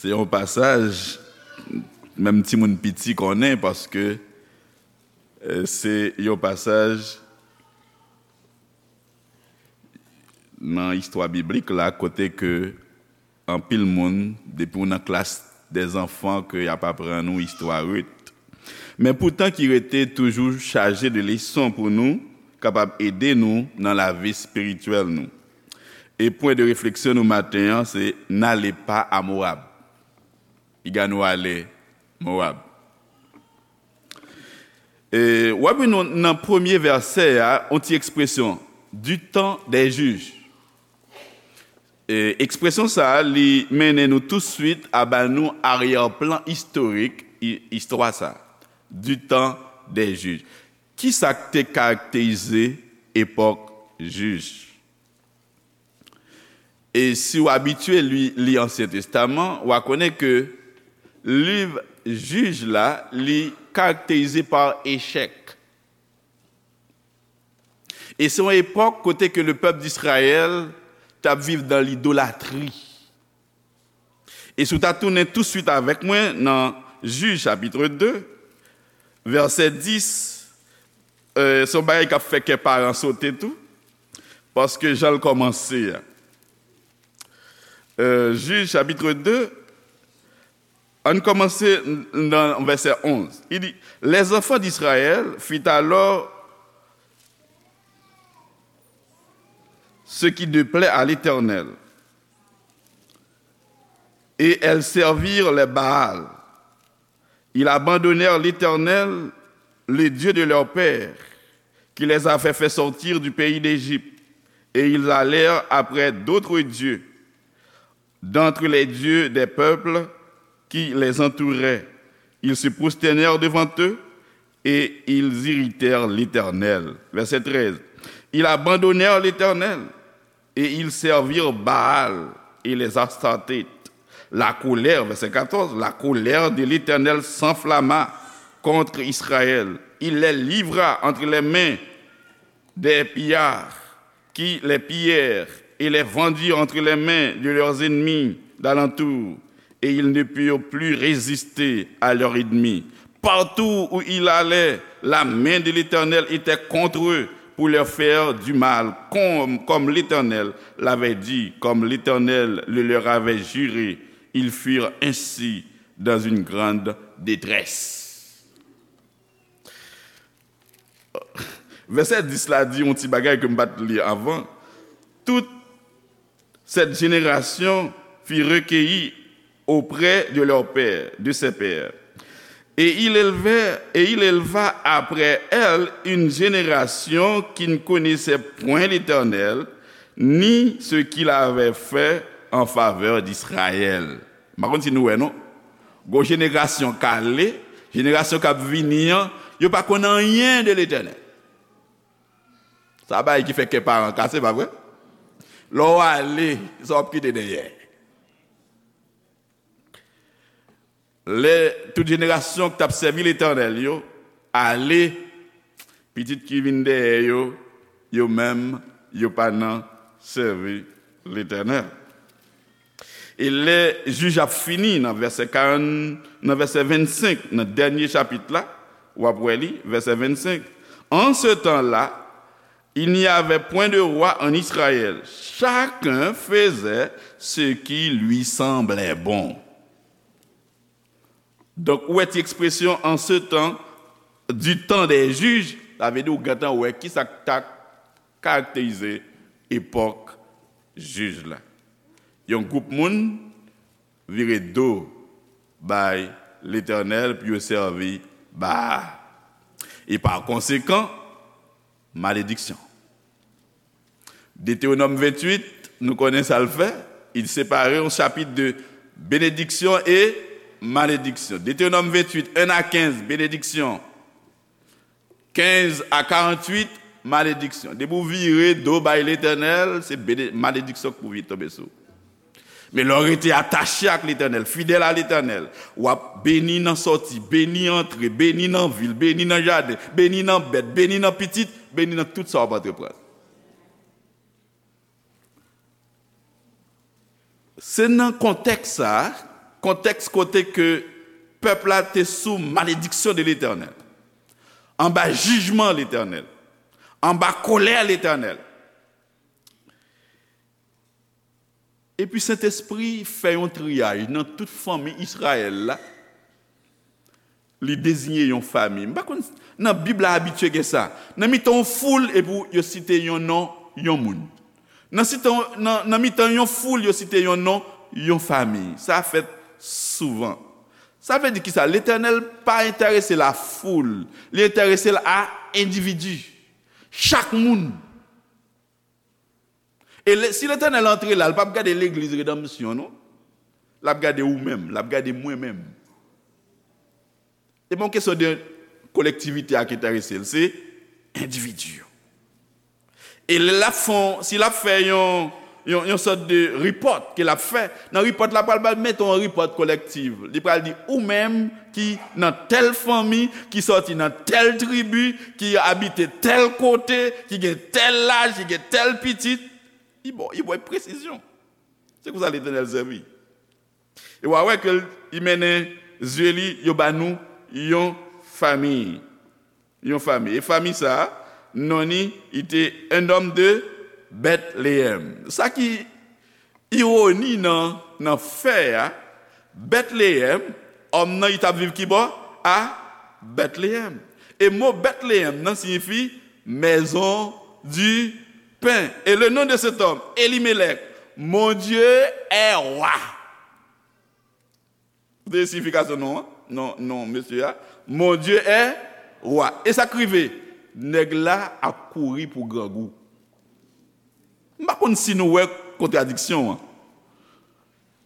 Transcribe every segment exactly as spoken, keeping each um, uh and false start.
Se yon pasaj, menm timoun piti konnen, paske, eh, se yon pasaj nan istwa biblik la, kote ke anpil moun, depi w nan klas dèzanfan, ke y ap aprann ou istwa Rit. Men poutan ki rete toujou chaje de leson pou nou, kapab ede nou nan lavi espirityèl nou. E pwen de refleksyon nou maten an, se n'allez pas à Moab. Piga nou ale Moab. E, w ap jwenn nan, nan premye vèsè a, yon ti ekspresyon, du temps des juges. E, ekspresyon sa a, li mennen nou touswit a ba nou aryè plan istorik i-, istwa sa a, du temps des juges. Kisa k te karakterize epòk jij? E si w abitye li, li Ansyen Testaman, w a konnen ke liv Jij la, li karakterize pa echèk. E se yon epòk kote ke le pèp d'Israyèl t ap viv dan lidolatri. E si w ta tounen touswit avèk mwen nan Jij chapit de, vèsè dis, eh, se yon bagay k ap fè kè paran sote tou, paske jan l kòmanse a. Eh, Jij chapit de, ann kòmanse nan vèsè onz. Li di, Les enfants d'Israël firent alors ce qui ne plaît à l'Éternel, et elles servirent les Baals. Ils abandonnèrent l'Éternel, le Dieu de leur père, qui les avait fait sortir du pays d'Égypte, et ils allèrent après d'autres dieux, d'entre les dieux des peuples qui les entouraient. Ils se prosternèrent devant eux et ils irritèrent l'Éternel. Verset treize. Ils abandonnèrent l'Éternel et ils servirent Baal et les Astartés. La colère, verset quatorze, la colère de l'Éternel s'enflamma contre Israël. Il les livra entre les mains des pillards qui les pillèrent et les vendirent entre les mains de leurs ennemis d'alentour, et ils ne purent plus résister à leurs ennemis. Partout où ils allaient, la main de l'Éternel était contre eux pour leur faire du mal, comme, comme l'Éternel l'avait dit, comme l'Éternel le leur avait juré. Ils furent ainsi dans une grande détresse. Vèsè dis la di yon ti bagay ke m pa t li avan. Toute cette génération fut recueillie auprès de leur père, de ses pères. Et il élevait, et il éleva après elle une génération qui ne connaissait point l'Éternel, ni ce qu'il avait fait en faveur d'Israël. M pa konn si nou wè, non? Gon jenerasyon k ale, jenerasyon k ap vini an, yo pa konn anyen de Letènèl. Sa bagay ki fè kè paran kase, pa vre? Lè w ale, sa w ap kite dèyè? Lè tout jenerasyon ki t ap sèvi Letènèl yo ale, pitit ki vin dèyè yo, yo menm, yo pa nan sèvi Letènèl. E lè jij ap fini nan vèsè karant, nan vèsè vennsenk, nan dènye chapit la, w ap wè li, vèsè vennsenk. En ce temps-là, il n'y avait point de roi en Israël. Chacun faisait ce qui lui semblait bon. Donk, ou wè ti ekspresyon en ce temps, du temps des juges, sa vle di ou gentan wè kisa k ta karakterize epòk jij la. Yon gwoup moun vire do bay Letènèl pou yo sèvi Baal. E pa konsekan, malediksyon. Detewonòm venntuit, nou konnen sa l fè. Il sépare yon chapit de bénédiction et malédiction. Detewonòm venntuit, en a kenz, benediksyon. Kenz a karanntuit, malediksyon. Depi w vire do bay Letènèl, se bene-, malediksyon k pou vin tonbe sou ou. Men lè w rete atache ak Letènèl, fidèl a Letènèl, w ap beni nan sòti, beni antre, beni nan vil, beni nan jaden, beni nan bèt, beni nan pitit, beni nan tout sa w ap antreprann. Se nan kontèks sa a, Kontèks kote ke pèp la te sou malediksyon de Letènèl, anba jijman Letènèl, anba kòlè Letènèl. Epi Sentespri fè yon triyaj nan tout fanmi Izrayèl la. Li deziye yon fami. M pa konn, nan Bib la abitye gen sa. Nan mitan yon foul, epi yo site yon non, yon moun. Nan, site, nan, nan mitan yon foul, yo site yon non, yon fami. Sa fèt souvan. Sa vle di kisa? Letènèl pa enterese l a foul. Li enterese l a endividi. Chak moun. E le, si Letènèl antre la, l p ap gade legliz Redanmsyon, non. L ap gade ou menm, l ap gade mwen menm. E pa yon kesyon de kolektivite a ki enterese l, se endividi yo. E lè l ap fè, si l ap fè yon, yon, yon sòt de report ke l ap fè, nan report la, pral ba, mete yon report kolektif. Li pral di, ou menm ki nan tèl fanmi, ki sòti nan tèl tribi, ki abite tèl kote, ki gen tèl laj, ki gen tèl pitit, li ba w, li ba w presizyon. Se konsa Letènèl sèvi. E w a wè ke l, li mennen zye li, yo ba nou yon fanmi. Yon fanmi. E fanmi sa a, non li, li te un homme de Bethléem. Sa ki iwoni nan, nan fè a, Bethléem, òm nan, li t ap viv ki bò? A Bethléem. E mo Bethléem nan siyifi maison du pain. Et le nom de cet homme, Elimelech, Mon Dieu est roi. Koute siyifikasyon non an, non, non mesye a. Mon Dieu est roi. E sa k rive? Nèg la ap kouri pou grangou. M pa konn si nou wè kontradiksyon an.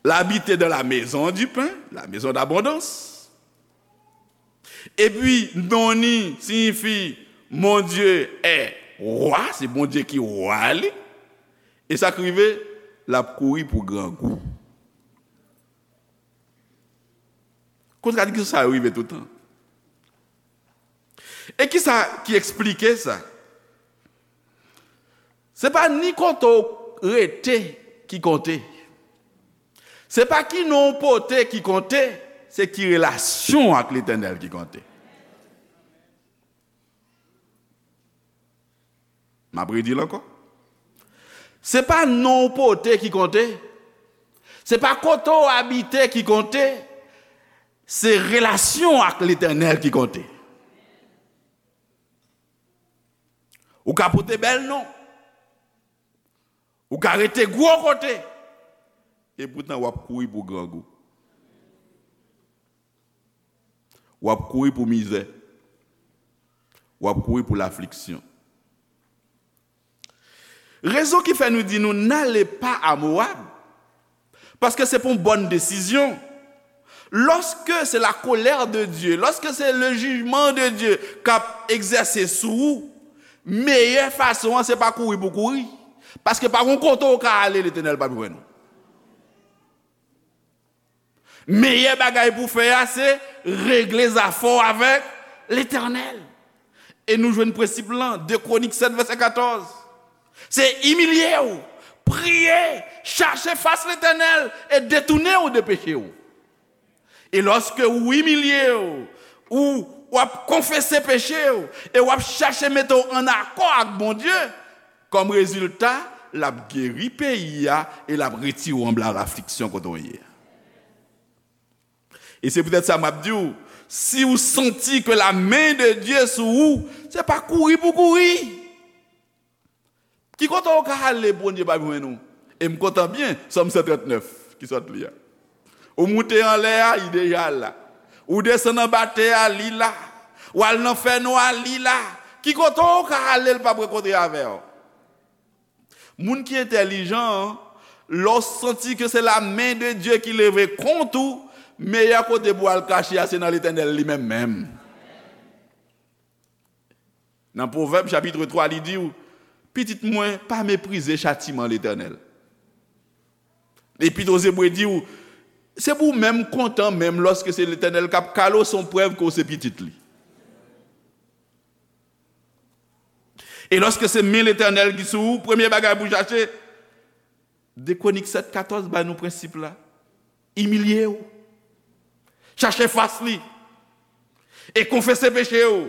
L abite dans la maison du pain, la maison d'abondance. Epi, non li siyifi Mon Dieu est roi, se Bondye ki wa li. E sa k rive? L ap kouri pou grangou. Kontradiksyon sa yo rive toutan. E kisa ki eksplike sa? Se pa ni kote w rete ki konte. Se pa ki non w pote ki konte, se ki relasyon w ak Letènèl ki konte. M ap redi l ankò. Se pa non w pote ki konte. Se pa kote w abite ki konte. Se relasyon w ak Letènèl ki konte. Ou ka pote bèl non. Ou ka rete gwo kote. E poutan w ap kouri pou grangou. W ap kouri pou mizè. W ap kouri pou lafliksyon. Rezon ki fè nou di nou, n'allez pas à Moab, paske se pa yon bòn desizyon. Lorsque c'est la colère de Dieu, lorsque c'est le jugement de Dieu k ap egzèse sou ou, meyè fason an se pa kouri pou kouri. Paske pa gon kote w ka ale, Letènèl p ap jwenn ou. Meyè bagay pou w fè a, se regle zafè w avèk Letènèl. E nou jwenn prensip lan, de Kwonik sèt, vèsè katòz. Se imilye w, priye, chache fas Letènèl e detounen w de peche w. E lòske w imilye w, ou w ap konfese peche w, e w ap chache mete w ann akò ak Bondye, kòm rezilta, l ap geri peyi a e l ap retire w anba lafliksyon kote w ye a. E se poutèt sa m ap di w, si w santi ke la men de Dye sou ou, se pa kouri pou kouri. Ki kote w ka ale, Bondye p ap jwenn ou? E m kontan byen, Sòm san trannèf ki sot li a. Ou moute anlè a, li deja la. Ou desann anba tè a, li la. W al nan fènwa, li la. Ki kote w ka ale, l p ap rankontre avè w? Moun ki entèlijan an, lè w santi ke se la men de Dye ki leve kont ou, meyè kote pou w al kache a, se nan Letènèl li menm menm. Nan Pwovèb, chapit twa, li di w, pitit mwen, pa meprize chatiman Letènèl. Epit Ozebre di w, se pou w menm kontan menm lòske se Letènèl k ap kale w, se yon prèv ke w se pitit li. E lòske se men Letènèl ki sou ou, premye bagay pou w chache, de Kwonik sèt katòz ba nou prensip la. Imilye w. Chache fas li. E konfese peche w.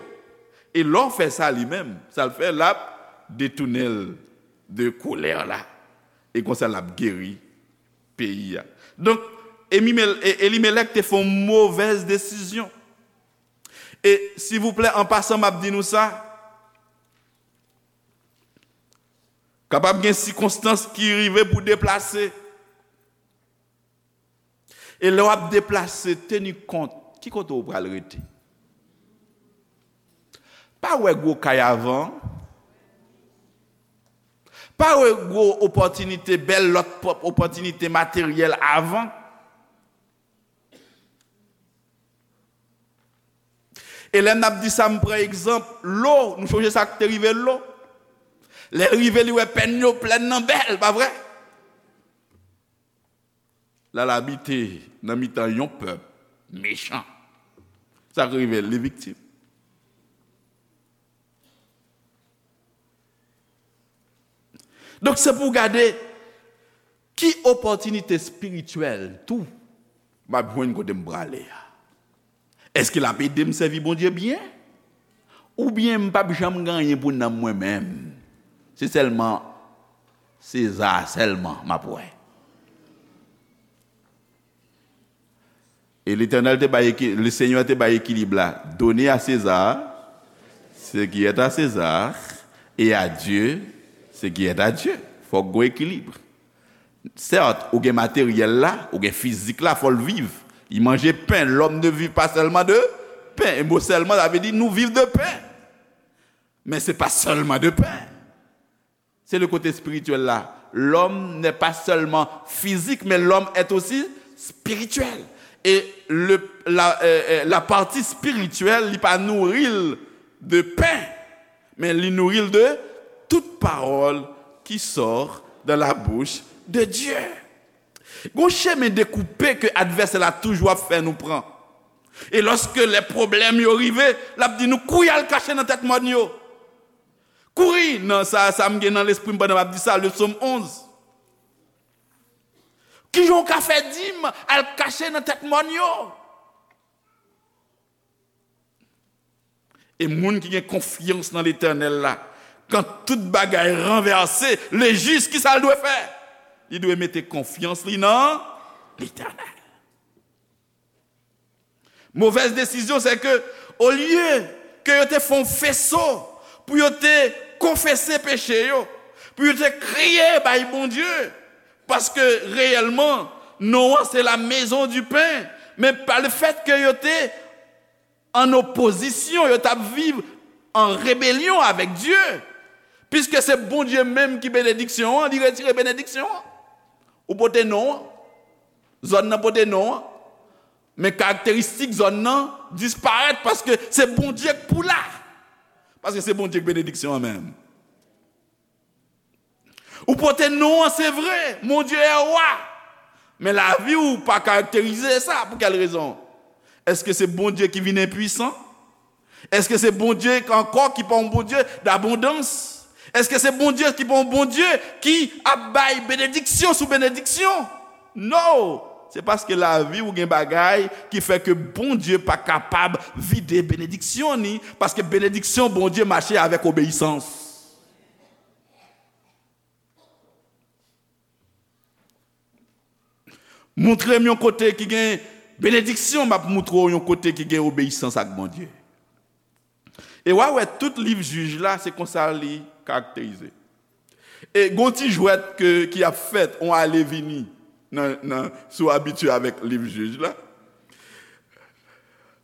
E lè w fè sa li menm, sa l fè, l ap detounen l de kolè la. E konsa l ap geri peyi a. Donk, Emimel- E- Elimelèk te fè yon movèz desizyon. E, silvouplè, an pasan, m ap di nou sa. Kapab gen sikonstans ki rive pou deplase. E lè w ap deplase, teni kont, ki kote w pral rete? Pa wè gwo kay avan. Pa wè gwo opòtinite, bèl lòt pòp- opòtinite materyèl avan. E lè n ap di sa, m pran egzanp Lo. Nou chonje sa k te rive Lo? Lè l rive, li wè pèn yo plèn nan bèl, pa vre? L al abite nan mitan yon pèp mechan. Sa k rive l, li viktim. Donk, se pou w gade ki opòtinite espirityèl tou m ap jwenn kote m prale a. Èske l ap ede m sèvi Bondye byen? Oubyen m p ap janm gen anyen pou nanm mwen menm? Se sèlman Seza sèlman m ap wè. E Letènèl te bay eki- Lesenyè te bay ekilib la. Donner à César ce qui est à César et à Dieu ce qui est à Dieu. Fòk gon ekilib. Sèt, ou gen materyèl la, ou gen fizik la, fò l viv. Il mangeait pain. L'homme ne vit pas seulement de pain. E mo sèlman, sa vle di nou viv de pen. Men se pa sèlman de pen. Se le kote espirityèl la. L'homme n'est pas seulement physique, mais l'homme est aussi spirituel. E le, la, euh, euh, la pati espirityèl, li pa nouri l de pen, men li nouri l de tout parole qui sort de la bouche de Dieu. Gon chemen dekoupe ke advèsè la toujou ap fè nou pran. E lòske lè pwoblèm yo rive, l ap di nou kouri al kache nan tèt mòn yo. Kouri nan sa, sa m gen nan lespri m pandan m ap di sa, le psaume onze. Kijan w ka fè di m al kache nan tèt mòn yo? E moun ki gen konfyans nan Letènèl la, kan tout bagay ranvèse, le jis, ki sa l dwe fè? Li dwe mete konfyans li nan Letènèl. Movèz desizyon, se ke, olye ke yo te fè yon feso pou yo te konfese peche yo, pou yo te kriye bay Bondye, paske reyèlman, non an se la maison du pain, men pa le fèt ke yo te an opozisyon, yo t ap viv an rebelyon avèk Dye, piske se Bondye menm ki benediksyon an, li retire benediksyon an. Ou pote non an, zòn nan pote non an, men karakteristik zòn nan disparèt paske se Bondye k pou la. Paske se Bondye k benediksyon an menm. Ou pote non an, se vre, Mon Dieu est roi. Men lavi w pa karakterize sa. Pou kèl rezon? Èske se Bondye ki vin enpwisan? Èske se Bondye ankò ki pa yon Bondye dabondans? Èske se Bondye ki pa yon Bondye ki ap bay benediksyon sou benediksyon? No! Se paske lavi w gen bagay ki fè ke Bondye pa kapab vide benediksyon ni, paske benediksyon Bondye mache avèk obeyisans. Montre m yon kote ki gen benediksyon, m ap montre w yon kote ki gen obeyisans ak Bondye. E w a wè tout liv Jij la, se konsa li karakterize. E gon ti jwèt ke, ki ap fèt, on ale vini nan, nan, si w abitye avèk liv Jij la.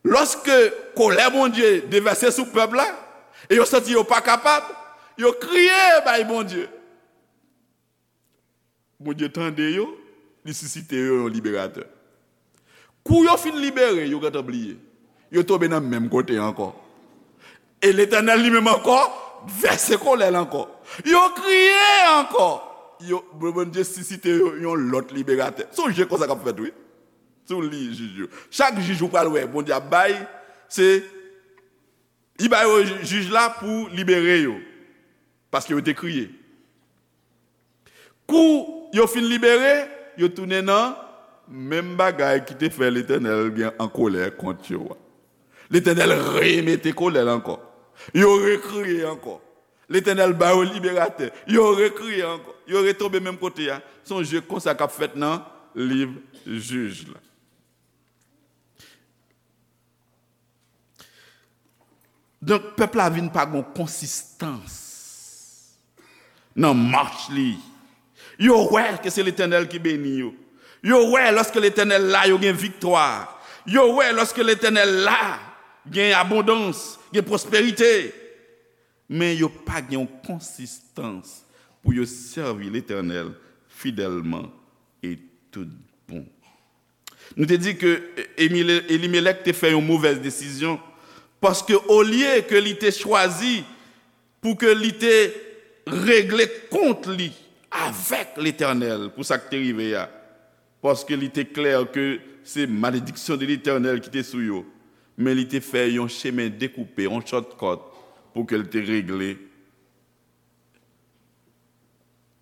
Lòske kolè Bondye devèse sou pèp la, e yo santi yo pa kapab, yo kriye bay Bondye. Bondye tande yo, li sisite yo yon liberatè. Kou yo fin libere, yo gentan bliye. Yo tonbe nan menm kote ankò. E Letènèl li menm ankò vèse kolè l ankò. Yo kriye ankò. Yo, Bondye sisite yo yon lòt liberatè. Se yon je konsa k ap fèt, wi. Si w li jij yo. Chak jij ou pral wè, Bondye ap bay, se, li bay yo jij la pou libere yo. Paske yo te kriye. Kou yo fin libere, yo tounen nan menm bagay ki te fè Letènèl gen an kolè kont yo a. Letènèl remete kolè l ankò. Yo rekriye ankò. Letènèl ba yo liberatè. Yo rekriye ankò. Yo retonbe menm kote a. Se yon je konsa k ap fèt nan liv Jij la. Donk, pèp la vin pa gon konsistans nan mach li. Yo wè ke se Letènèl ki beni yo. Yo wè lòske Letènèl la, yo gen viktwa. Yo wè lòske Letènèl la, gen abondans, gen pwosperite. Men yo pa gen yon konsistans pou yo sèvi Letènèl fidèlman e tout bon. Nou te di ke Emile-, Elimelèk te fè yon movèz desizyon, paske olye ke li te chwazi pou ke li te regle kont li avèk Letènèl pou sa k te rive a, paske li te klè ke se malediksyon de Letènèl ki te sou yo, men li te fè yon chemen dekoupe, yon shortcut, pou ke l te regle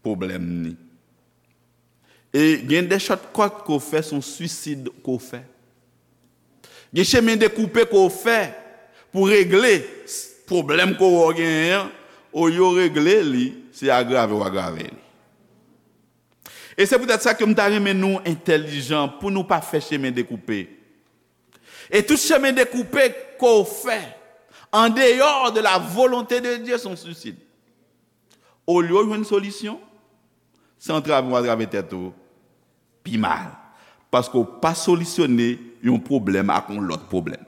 pwoblèm ni. E gen de shortcut ke w fè, se yon swisid ke w fè. Gen chemen dekoupe ke w fè pou regle s-, pwoblèm ke w wè w genyen an, olye w regle li, se agrave w agrave li. E se poutèt sa ke m ta renmen nou entèlijan pou nou pa fè chemen dekoupe. E tout chemen dekoupe ke w fè, en dehors de la volonté de Dieu, se yon swisid. Olye w jwenn solisyon, se antrave w antrave tèt ou pi mal. Paske w pa solisyone yon pwoblèm ak yon lòt pwoblèm.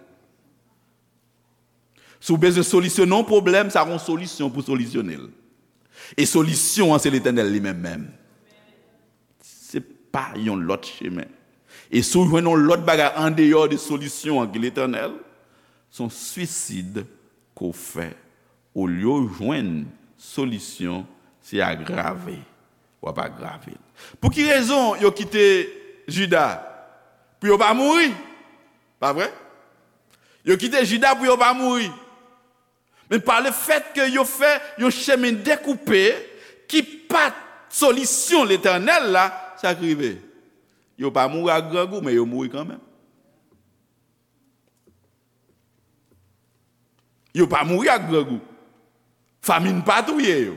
Si w bezwen solisyone yon pwoblèm, sa gon solisyon pou solisyone l. E solisyon an, se Letènèl li menm menm. Se pa yon lòt chemen. E si w jwenn yon lòt bagay andeyò de solisyon an ki Letènèl, se yon swisid ke w fè. Olye w jwenn solisyon, se agrave w ap agrave l. Pou ki rezon yo kite Jida? Pou yo pa mouri. Pa vre? Yo kite Jida pou yo pa mouri. Men pa le fèt ke yo fè yon chemen dekoupe ki pa t solisyon Letènèl la, sa k rive? Yo pa mouri ak grangou, men yo mouri kanmenm. Yo pa mouri ak grangou. Famin pa touye yo.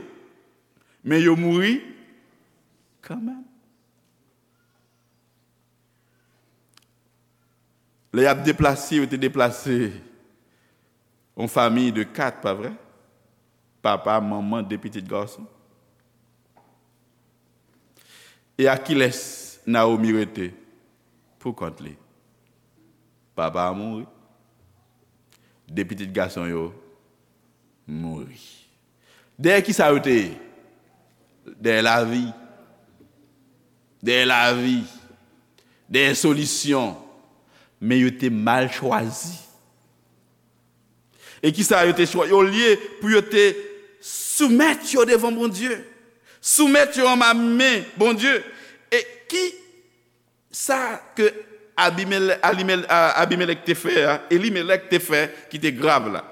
Men yo mouri kanmenm. Lè y ap deplase, yo te deplase yon fanmi de kat, pa vre? Papa, manman, de pitit gason. E ak kilès Nawomi rete pou kont li? Papa a mouri. De pitit gason yo mouri. Dèyè ki sa yo te ye? Dèyè lavi. Dèyè lavi. Dèyè solisyon. Men yo te mal chwazi. E ki sa yo te chwazi? Olye pou yo te soumèt yo devan Bondye, soumèt yo anba men Bondye. E ki sa ke Abimele-, Alimele-, a, Abimelèk te fè a, Elimelèk te fè ki te grav la?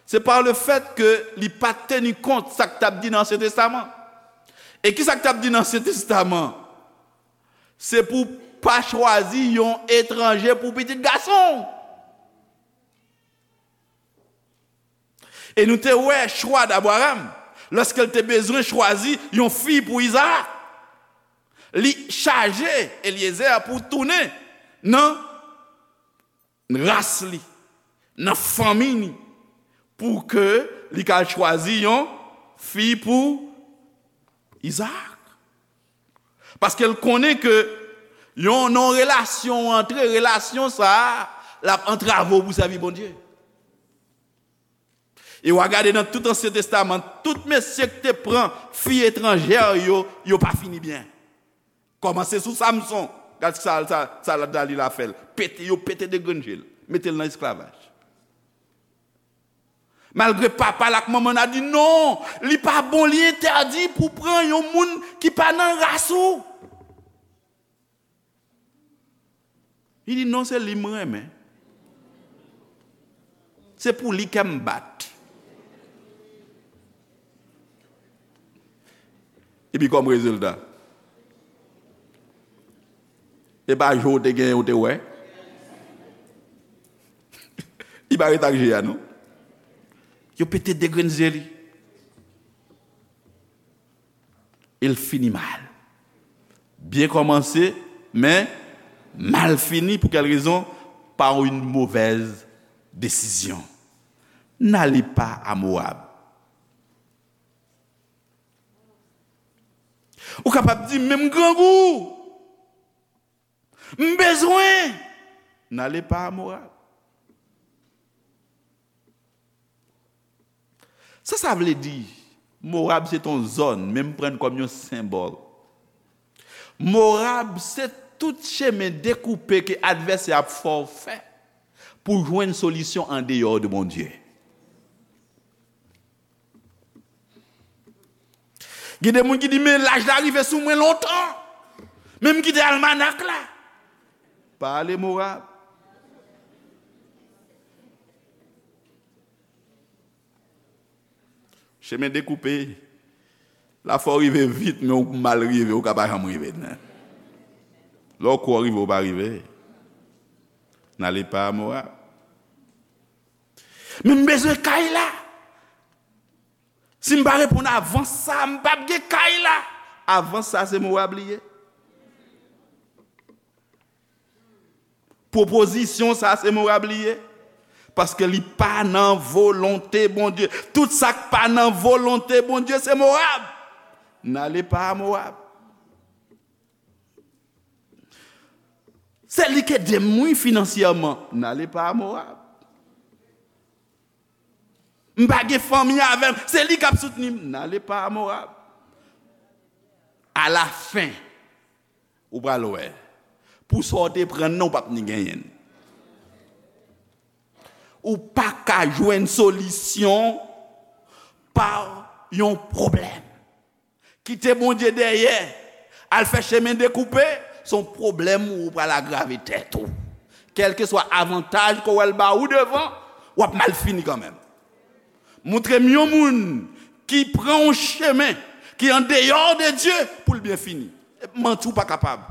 Se pa le fèt ke li pa t teni kont sa k t ap di nan Ansyen Testaman. E ki sa k t ap di nan Ansyen Testaman? Se pou pa chwazi yon etranje pou pitit gason w. E nou te wè chwa d Abraram, lòske l te bezwen chwazi yon fi pou Izaak. Li chaje Elyezè pou tounen nan ras li, nan fanmi li, pou ke li ka al chwazi yon fi pou Izaak. Paske l konnen ke yon non relasyon ou antre, relasyon sa a, l ap antrave w pou sèvi Bondye. E w a gade nan tout Ansyen Testaman, tout mesye ki te pran fi etranjè yo, yo pa fini byen. Kòmanse sou Samson, gad sa, sa, sa Dalila fè l. Pete, yo pete de grenn je l, mete l nan esklavaj. Malgre papa l ak manman l a di non, li pa bon, li entèdi pou pran yon moun ki pa nan ras ou. Li di non, se li m renmen. Se pou li kè m bat. Epi kòm rezilta, E pa je w te genyen, ou te wè. Li pa ret ak je a, non. Yo pete de grenn zye li. E l fini mal. Byen kòmanse, men mal fini. Pou kèl rezon? Par une mauvaise décision. N'allez pas à Moab. Ou kapab di, men m grangou. M bezwen. N'allez pas à Moab. Sa sa vle di? Moab se t on zòn, men m pran l kòm yon senbòl. Moab se tout chemen dekoupe ke advèsè ap fè w fè pou jwenn solisyon andeyò de Bondye. Gen de moun ki di, men laj la rive sou mwen lontan. Men m kite almanak la. Pa ale Moab. Chemen dekoupe. La fò w rive vit, men ou mal rive, ou ka pa janm rive, non. Lè w kwè w rive, ou pa rive. N'allez pas à Moab. Men m bezwen kay la. Si m pa reponn avan sa, m p ap gen kay la. Avan sa, se Moab li ye. Pwopozisyon sa, se Moab li ye. Paske li pa nan volonte Bondye. Tout sa k pa nan volonte Bondye, se Moab. N'allez pas à Moab. Se li k ede m, wi, finansyèman. N'allez pas à Moab. M pa gen fanmi avè m. Se li k ap soutni m. N'allez pas à Moab. Alafen, ou pral wè. Pou sa w te pran nan, ou p ap ni genyen l. Ou pa ka jwenn solisyon pa yon pwoblèm. Kite Bondye dèyè, al fè chemen dekoupe, se yon pwoblèm ou pral agrave tèt ou. Kèlkeswa avantaj ke w wè l ba ou devan, w ap mal fini kanmenm. Montre m yon moun ki pran yon chemen ki andeyò de Dye pou l byen fini. Manti, ou pa kapab.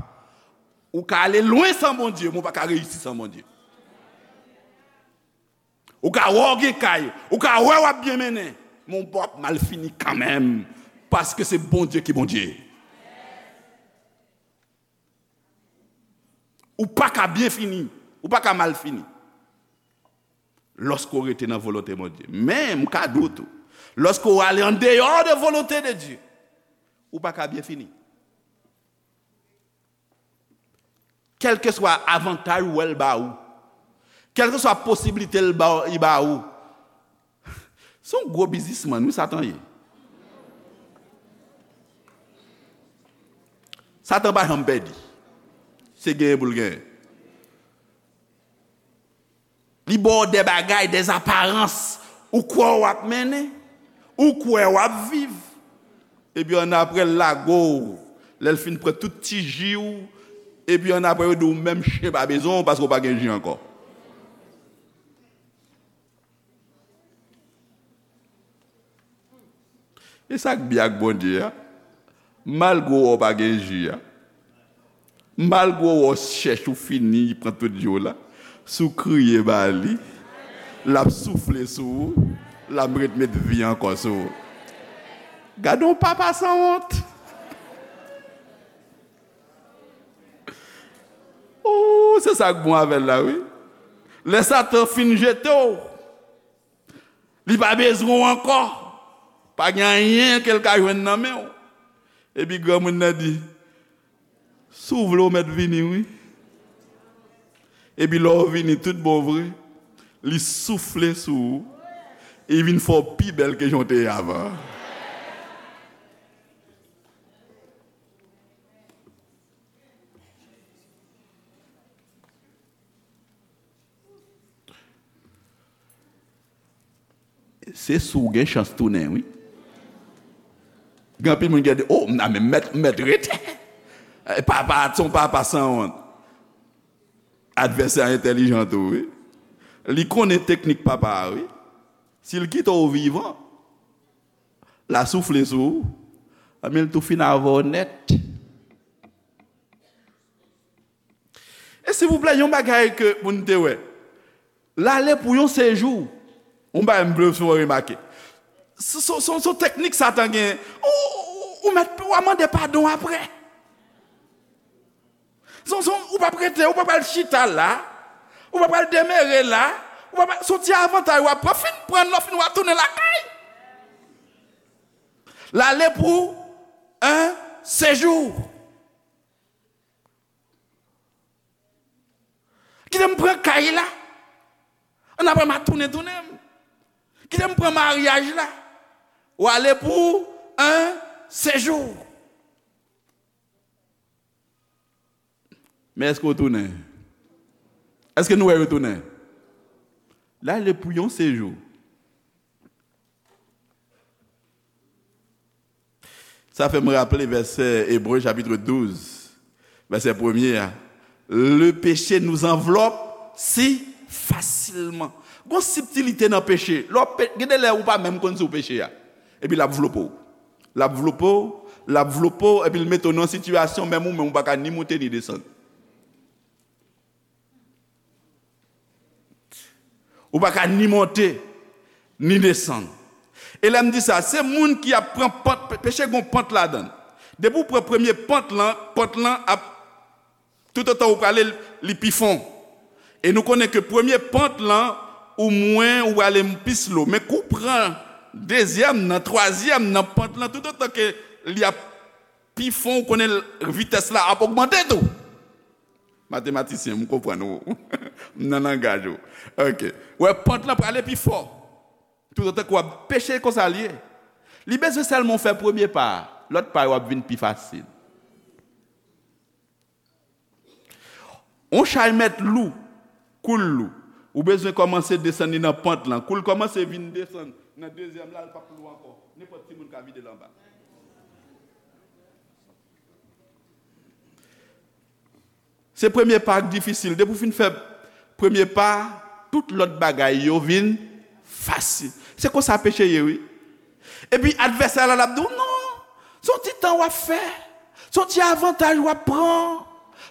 Ou ka ale lwen san Bondye, men w pa ka reyisi san Bondye. Ou ka wè w gen kay, ou ka wè w ap byen mennen, men w p ap mal fini kanmenm, paske se Bondye ki Bondye. Ou pa ka byen fini, ou pa ka mal fini. Lòske w rete nan volonte Bondye. Men, m ka di w tou, lòske w ale andeyò de volonte de Dye, ou pa ka byen fini. Kèlkeswa avantaj ou wè l ba ou, kèlkeswa posiblite l ba, li ba ou, se yon gwo biznismann, wi, Satan ye. Satan pa janm pèdi. Se genyen pou l genyen. Li ba w de bagay, de aparans. Ou kwè w ap mennen, ou kwè w ap viv. Epi annapre, l lage w. Lè l fin pran tout ti ji w, epi annapre, yo di w menm chen pa bezwen w paske w pa gen ji ankò. E sa k byen ak Bondye a, malgre w wè w pa gen ji a, malgre w wè w chèch ou fini, li pran tout ji w la, si w kriye ba li, l ap soufle sou ou, l ap ret met vi ankò sou ou. Gade yon papa sanwont! Oh, se sa k bon avè l la, wi. Lè Satan fin jete w, li pa bezwen w ankò. Pa gen anyen ke l ka jwenn nan men w. Epi granmoun nan di, si w vle w mèt vini, wi. Epi lè w vini tout bon vre, li soufle sou ou, e li vin fè w pi bèl ke jan w te ye avan. Se si w gen chans tounen, wi. Gen anpil moun ki di, oh, m nan men mèt, mèt rete. Eh, papa a, se yon papa sanwont. Advèsè a entèlijan tou, wi. Li konnen teknik papa a, wi. Si l kite w vivan, l a soufle sou ou, anben l tou fin avè w nèt. E silvouplè, yon bagay ke pou n te wè. L ale pou yon sejou. Yon bagay m vle fè w remake. Se, se, se, se teknik Satan gen. Ou, ou, ou mèt, w a mande padon apre. Se, se, ou p ap rete, ou p ap al chita la. Ou p ap al demere la. Ou p ap, se yon ti avantaj w ap pran, fin pran, lè w fin w ap tounen lakay. L ale pou yon sejou. Kite m pran kay la. Ann apre m a tounen, tounen m. Kite m pran maryaj la. W ale pou yon sejou. Men èske w tounen? Èske nou wè yo tounen? L ale pou yon sejou. Sa fè m raple vèsè Ebre chapit douz, vèsè premye a. Le péché nous enveloppe si facilement. Gon sibtilite nan peche. Lè w pe-, gen de lè ou pa menm konn si w peche a. Epi l ap vlope w. L ap vlope w, l ap vlope w, epi l mete w nan sitiyasyon menm ou menm ou pa ka ni monte ni desann. Ou pa ka ni monte, ni desann. E lè m di sa, se moun ki ap pran pant, pe-, peche gon pant ladan l. Depi w pran premye pant lan, pant lan ap, toutotan ou prale, li pi fon. E nou konnen ke premye pant lan, ou mwen, ou prale pi slow. Men kou w pran dezyèm nan, twazyèm nan, pant lan, toutotan ke li ap pi fon, ou konnen vitès la ap ogmante tou. Matematisyen, m konprann ou. M nan langaj ou. Ok. Wè, pant lan prale pi fò. Toutotan ke w ap peche, konsa l ye. Li bezwen sèlman w fè premye pa a. Lòt pa yo ap vin pi fasil. On chay mèt lou, kou l lou. Ou bezwen kòmanse desann li nan pant lan. Kou l kòmanse vin desann nan dezyèm la, l p ap lou ankò. Nenpòt timoun ka vide l anba. Se premye pa k difisil. Depi w fin fè premye pa, tout lòt bagay yo vin fasil. Se konsa peche ye, wi. Epi advèsè la, l ap di w, "Non, se yon ti tan w ap fè. Se yon ti avantaj w ap pran.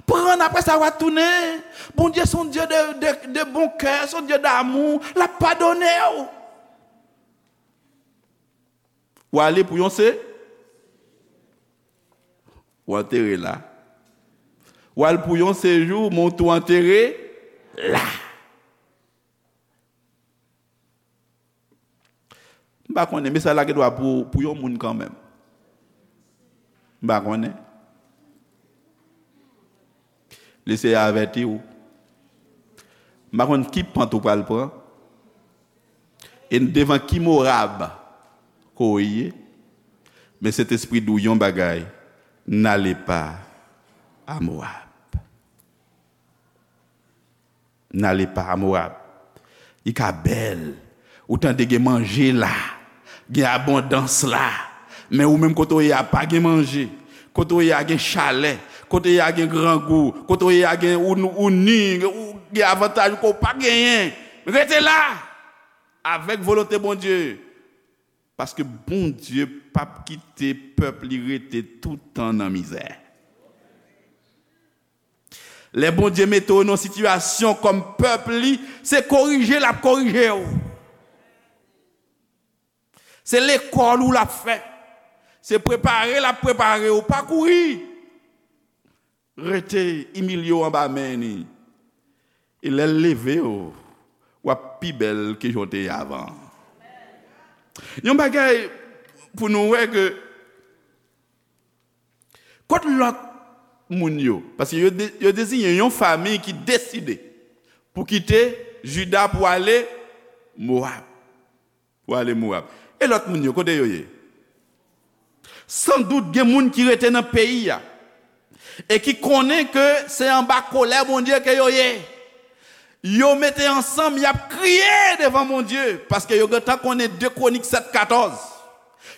Pran, apre sa, w a tounen. Bondye se yon Dye de, de, de bon kè, se yon Dye damou. L ap padone w." W ale pou yon se, w antere la. W al pou yon sejou, men w tou antere la. M pa konnen, mesaj la gen dwa pou, pou yon moun kanmenm. M pa konnen. Leseyè avèti w. M pa konn ki pant ou pral pran. E devan ki Moab ke w ye. Men Sentespri di w yon bagay. N'allez pas à Moab. N'allez pas à Moab. Li ka bèl. Ou tande gen manje la. Gen abondans la. Men ou menm kote w ye a pa gen manje. Kote w ye a gen chalè. Kote w ye a gen grangou. Kote w ye a gen ou, ou ni, ou gen avantaj ke w pa genyen. Rete la. Avèk volonte Bondye. Paske Bondye p ap kite pèp li rete toutan nan mizè. Lè Bondye mete w nan sitiyasyon kòm pèp li, se korije l ap korije w. Se lekòl ou l ap fè. Se prepare l ap prepare w. Pa kouri. Rete imilye w anba men li. E lè l leve w, w ap pi bèl ke jan w te ye avan. Yon bagay pou nou wè ke Kot lòt moun yo? Paske yo de-, yo deziyen yon fanmi ki deside pou kite Jida pou ale Mowab. Pou ale Mowab. E lòt moun yo, kote yo ye? Sandout gen moun ki rete nan peyi a e ki konnen ke se anba kolè Bondye ke yo ye. Yo mete ansanm, y ap kriye devan Bondye, paske yo gentan konnen de Kwonik sèt katòz.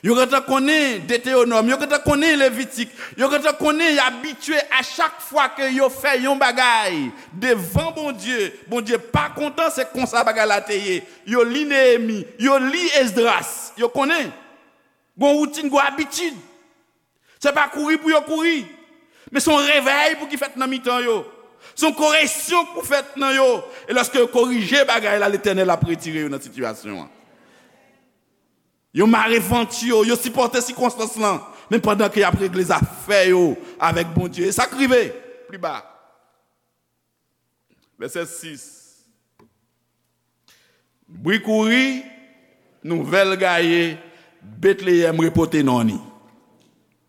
Yo gentan konnen Detewonòm, yo gentan konnen Levitik, yo gentan konnen y abitye a chak fwa ke yo fè yon bagay devan Bondye, Bondye pa kontan, se konsa bagay la te ye. Yo li Neyemi, yo li Esdras, yo konnen. Gon woutin, gon abitid. Se pa kouri pou yo kouri, men se yon revèy pou ki fèt nan mitan yo. Se yon koreksyon k pou fèt nan yo. E lòske yo korije bagay la, Letènèl ap retire yo nan sitiyasyon an. Yo mare vant yo, yo sipòte sikonstans lan. Men pandan ke y ap regle zafè yo avèk Bondye. E sa k rive pli ba. Vèsè sis. Bri kouri, nouvèl gaye, Betleyèm repote non ni.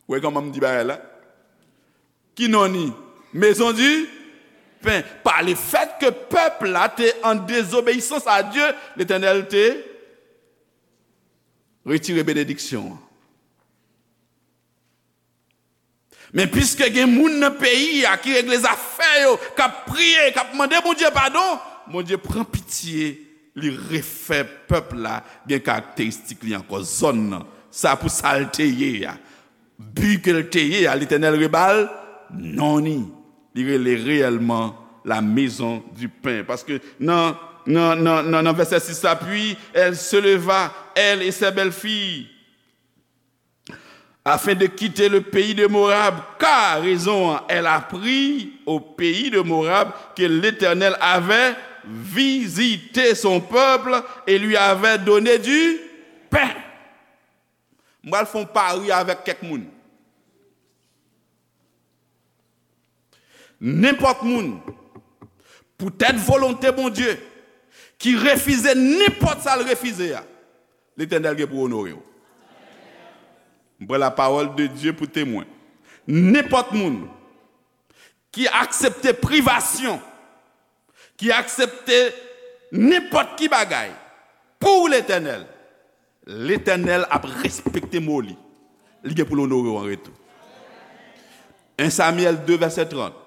Ou wè kòman m di bagay la? Ki non ni? Maison du pain. Par le fait que pèp la te an dezobeyisans a Dye, Letènèl te retire benediksyon an. Men piske gen moun nan peyi a ki regle zafè yo, k ap priye, k ap mande Bondye padon, Bondye pran pitye, li refè pèp la gen karakteristik li ankò, zòn nan. Sa pou sa l te ye a. Bi ke l te ye a, Letènèl reba l non ni. Li rele reyèlman la maison du pain. Paske nan, nan, nan, nan, nan vèsè sis la, puis elle se leva, elle et ses belles-filles, afin de quitter le pays de Moab, car, rezon an, elle apprit au pays de Moab que l'Éternel avait visité son peuple et lui avait donné du pain. M pral fè yon pari avèk kèk moun. Nenpòt moun, poutèt volonte Bondye, ki refize nenpòt sa l refize a, Letènèl gen pou onore w. M pran la parole de Dieu pou temwen. Nenpòt moun ki aksepte privasyon, ki aksepte nenpòt ki bagay pou Letènèl, Letènèl ap respekte mo li. Li gen pou l onore w an retou. En Samyèl de, vèsè trant.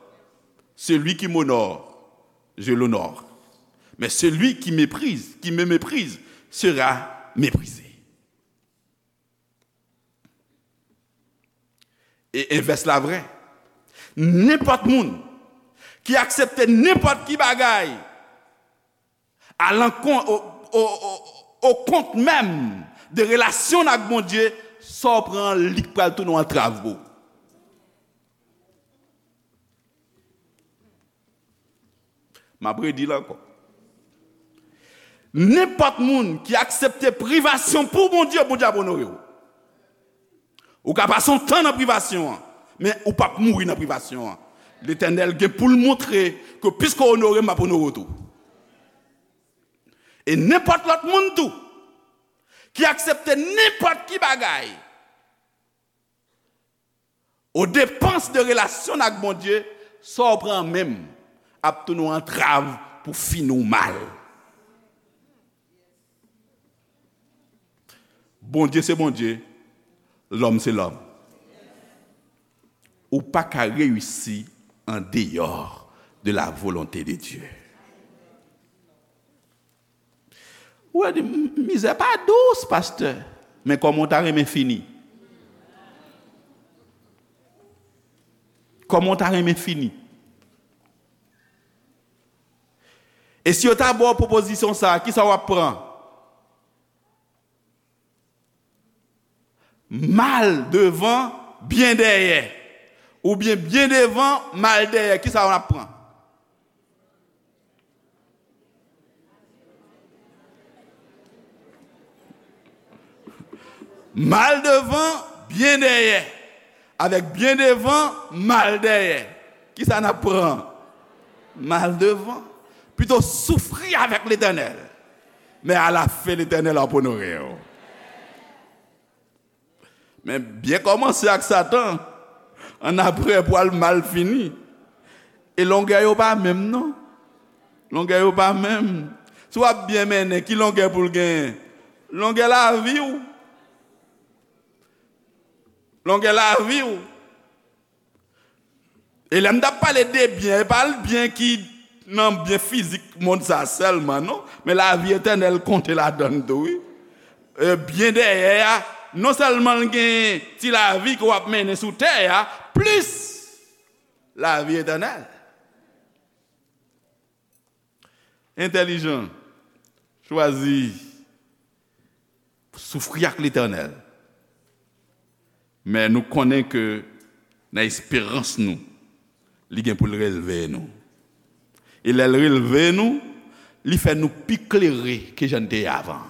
Celui qui m'honore, je l'honore. Mais celui qui méprise, qui me méprise, sera méprisé. E envès la vrè. Nenpòt moun ki aksepte nenpòt ki bagay alankont, o, o, o, o kont menm de relasyon n ak Bondye, sa w pran li k pral tounen yon antrav pou ou. M ap redi l ankò. Nenpòt moun ki aksepte privasyon pou Bondye, Bondye ap onore w. Ou ka pase yon tan nan privasyon an, men ou p ap mouri nan privasyon an. Letènèl gen pou l montre ke piske w onore m, m ap onore w tou. E nenpòt lòt moun tou ki aksepte nenpòt ki bagay o depans de relasyon n ak Bondye, sa w pran menm ap tounen yon antrav pou fini w mal. Bondye se Bondye, lòm se lòm. Ou pa ka reyisi an deyò de la volonte de Dye. Ou di, "M-, mizè pa dous, pastè." Men kòman w ta renmen fini? Kòman w ta renmen fini? E si yo ta ba w pwopozisyon sa a, kisa w ap pran? Mal devan, byen dèyè. Oubyen byen devan, mal dèyè. Kisa w ap pran? Mal devan, byen dèyè. Avèk byen devan, mal dèyè. Kisa n ap pran? Mal devan. Pito soufri avèk Letènèl. Men alafen, Letènèl ap onore w. Men byen kòmanse ak Satan, annapre pral mal fini. E longè yo pa menm, non. Longè yo pa menm. Si w ap byen mennen, ki longè pou l genyen? Longè lavi w. Longè lavi w. E lè m t ap pale de byen, e pa byen ki nan byen fizik mond sa sèlman, non. Men lavi etènèl konte ladan l tou, wi. E byen dèyè a, non sèlman l gen ti lavi ke w ap mennen sou tè a, plis lavi etènèl. Entèlijan, chwazi soufri ak Letènèl. Men nou konnen ke nan esperans nou, li gen pou l relve nou. E lè l relve nou, li fè nou pi klere ke jan n te ye avan.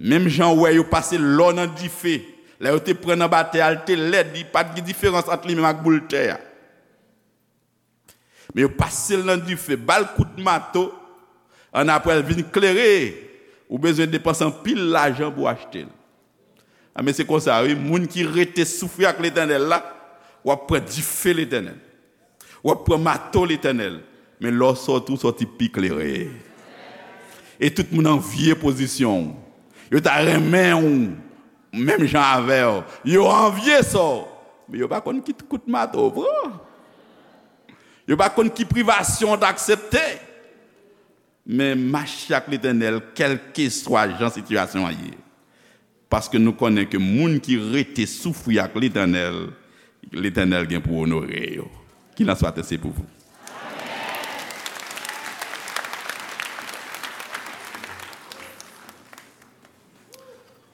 Menm jan w wè yo pase lò nan dife, lè yo te pran nan batè a, l te lèd, li pa t gen diferans ant li menm ak boul tè a. Men yo pase l nan dife, ba l kout mato, annapre l vin klere, ou bezwen depanse anpil lajan pou w achte l. A, men se konsa, wi, moun ki rete soufri ak Letènèl la, w ap pran dife Letènèl. W ap pran mato Letènèl. Men lè w sòti, w sòti pi klere. E tout moun anvye pozisyon w. Yo ta renmen w menm jan avè w. Yo anvye sa w. Men yo pa konn ki kout mato w pran. Yo pa konn ki privasyon w t aksepte. Men mache ak Letènèl, kèlkeswa jan sitiyasyon an ye. Paske nou konnen ke moun ki rete soufri ak Letènèl, Letènèl gen pou onore yo. Qu'il en soit ainsi pour vous.